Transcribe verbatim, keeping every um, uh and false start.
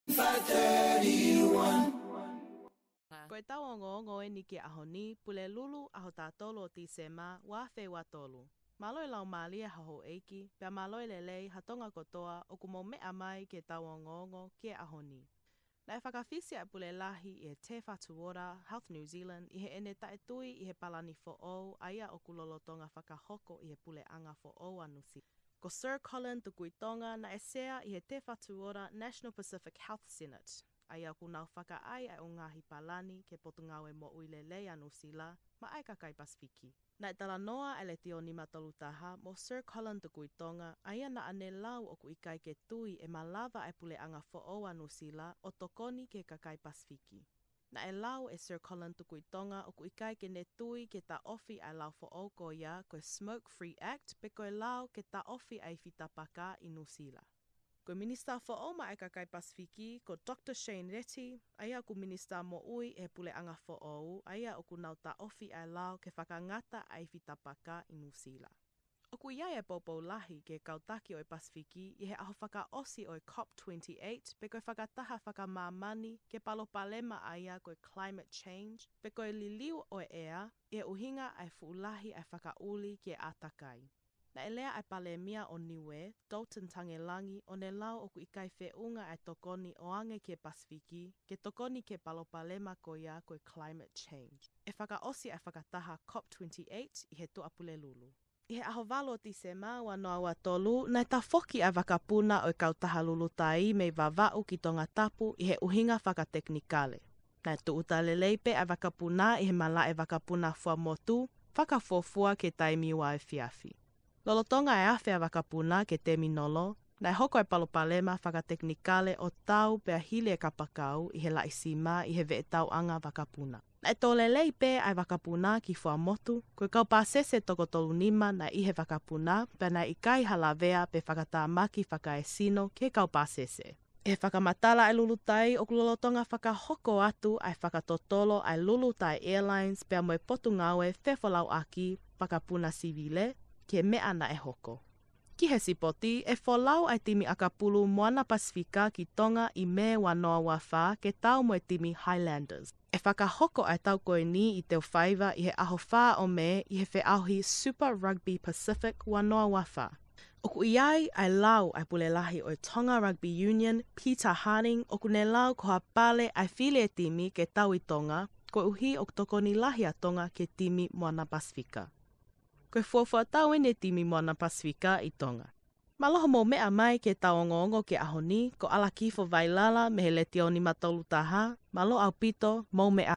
five thirty-one. Ko ʻetau ongoongo eni ki he ʻaho ni, Pulelulu, ʻaho taha tolu ʻo Tīsema, ua afe ua tolu. Mālō e laumālie ha houʻeiki, pea mālō e lelei ha Tonga kotoa ʻoku mou meʻa mai ki heʻetau ongoongo ki he ʻaho ni. Naʻe fakafisi ʻa e Pule Lahi ʻi he Te Whatu Ora, Health New Zealand, ʻi heʻene taʻetui ʻi he palani foʻou, ʻa ia ʻoku lolotonga fakahoko ʻi he puleʻanga foʻou ʻa Nuʻusila. Ko Sir Colin Tukuitonga naʻe sea ʻi he Te Whatu Ora National Pacific Health Synod, ʻa ia ʻoku nau fakaʻai ʻa e ngaahi palani ki he Potungāue Moʻui Lelei ʻa Nuʻusila, maʻa e kakai Pasifiki. Naʻe talanoa ʻa e Letiō nima tolu taha mo Sir Colin Tukuitonga, ʻa ia naʻa ne lau ʻoku ʻikai ke tui ʻe malava ʻa e puleʻanga foʻou ʻa Nuʻusila ʻo tokoni ki he kakai Pasifiki. Naʻe lau ʻe Sir Colin Tukuitonga ʻoku ʻikai ke ne tui ke taʻofi ʻa e lao foʻou ko ia ko e Smoke Free Act pe ko e lao ke taʻofi ʻa e ifi tapaka ʻi Nuʻusila. Ko e Minisitā Foʻou maʻa e kakai Pasifiki, ko Doctor Shane Reti, ʻa ia ʻoku Minisitā Moʻui ʻi he puleʻanga foʻou, ʻa ia ʻoku nau taʻofi ʻa e lao ke fakangata ʻa e ifi tapaka ʻi Nuʻusila. ʻOku ʻi ai e poupou lahi ki he kau taki ʻo e Pasifiki ʻi he ʻaho fakaʻosi ʻo e COP twenty-eight, pe ko e fakataha fakamāmani ki he palopalema ʻa ia ko e climate change, pe ko e liliu ʻo e ʻea, ʻi he ʻuhinga ʻa e fuʻu lahi ʻa e fakaʻuli ki he ʻātakai. Naʻe lea ʻa e Palēmia ʻo Niuē, Dalton Tagelagi, ʻo ne lau ʻoku ʻikai feʻunga ʻa e tokoni ʻo ange ki he Pasifiki ke tokoni ki he palopalema ko ia ko e climate change. ʻE fakaʻosi ʻa e fakataha COP twenty-eight ʻi he Tuʻapulelulu. ʻI he ʻaho valu ʻo Tīsema ua noa ua tolu, naʻe tafoki ʻa e vakapuna ʻo e kautaha Lulutai mei Vavaʻu ki Tongatapu ʻi he ʻuhinga fakatekinikale. Naʻe tūʻuta lelei pē ʻa e vakapuna ʻi he malaʻe vakapuna Fuaʻamotu, fakafuofua ki he taimi uaefiafi. Lolotonga e afe ʻa e vakapuna ki he teminolo, naʻe hoko e palopalema fakatekinikale ʻo tau pea hili e kapakau ʻi he laʻi sima ʻi he veʻetauʻanga vakapuna. Naʻe tō lelei pē ʻa e vakapuna ki Fuaʻamotu, ko e kau pāsese toko tolu nima naʻe ʻi he vakapuna, pea naʻe ʻikai ha lavea pe fakatamaki fakaesino ki he kau pāsese. ʻI he fakamatala ʻa e Lulutai, ʻoku lolotonga fakahoko atu ʻa e fakatotolo ʻa e Lulutai Airlines pea mo e Potungāue Fefolauʻaki Vakapuna Sivile ki he meʻa naʻe hoko. Ki he sipoti, ʻe folau ʻa e timi ʻakapulu Moana Pasifika ki Tonga ʻi Mē ua noa ua fā ke tau mo e timi Highlanders. ʻE fakahoko ʻa e tau ko eni ʻi Teufaiva ʻi he ʻaho fā ʻo Mē ʻi he feʻauhi Super Rugby Pacific ua noa ua fā. ʻOku ʻi ai ʻa e lau ʻa e Pule Lahi ʻo e Tonga Rugby Union, Peter Harding, ʻoku ne lau ko ha pale ʻa e fili e timi ke tau ʻi Tonga, koeʻuhi ʻoku tokoni lahi ʻa Tonga ki he timi Moana Pasifika. Ko e fuofua tau eni e timi Moana Pasifika ʻi Tonga. Mālō hoʻomou meʻa mai ki heʻetau ongoongo ki he ʻaho ni, ko ʻAlakifo Vailala mei he Letiō nima tolu taha, mālō ʻaupito, mou meʻa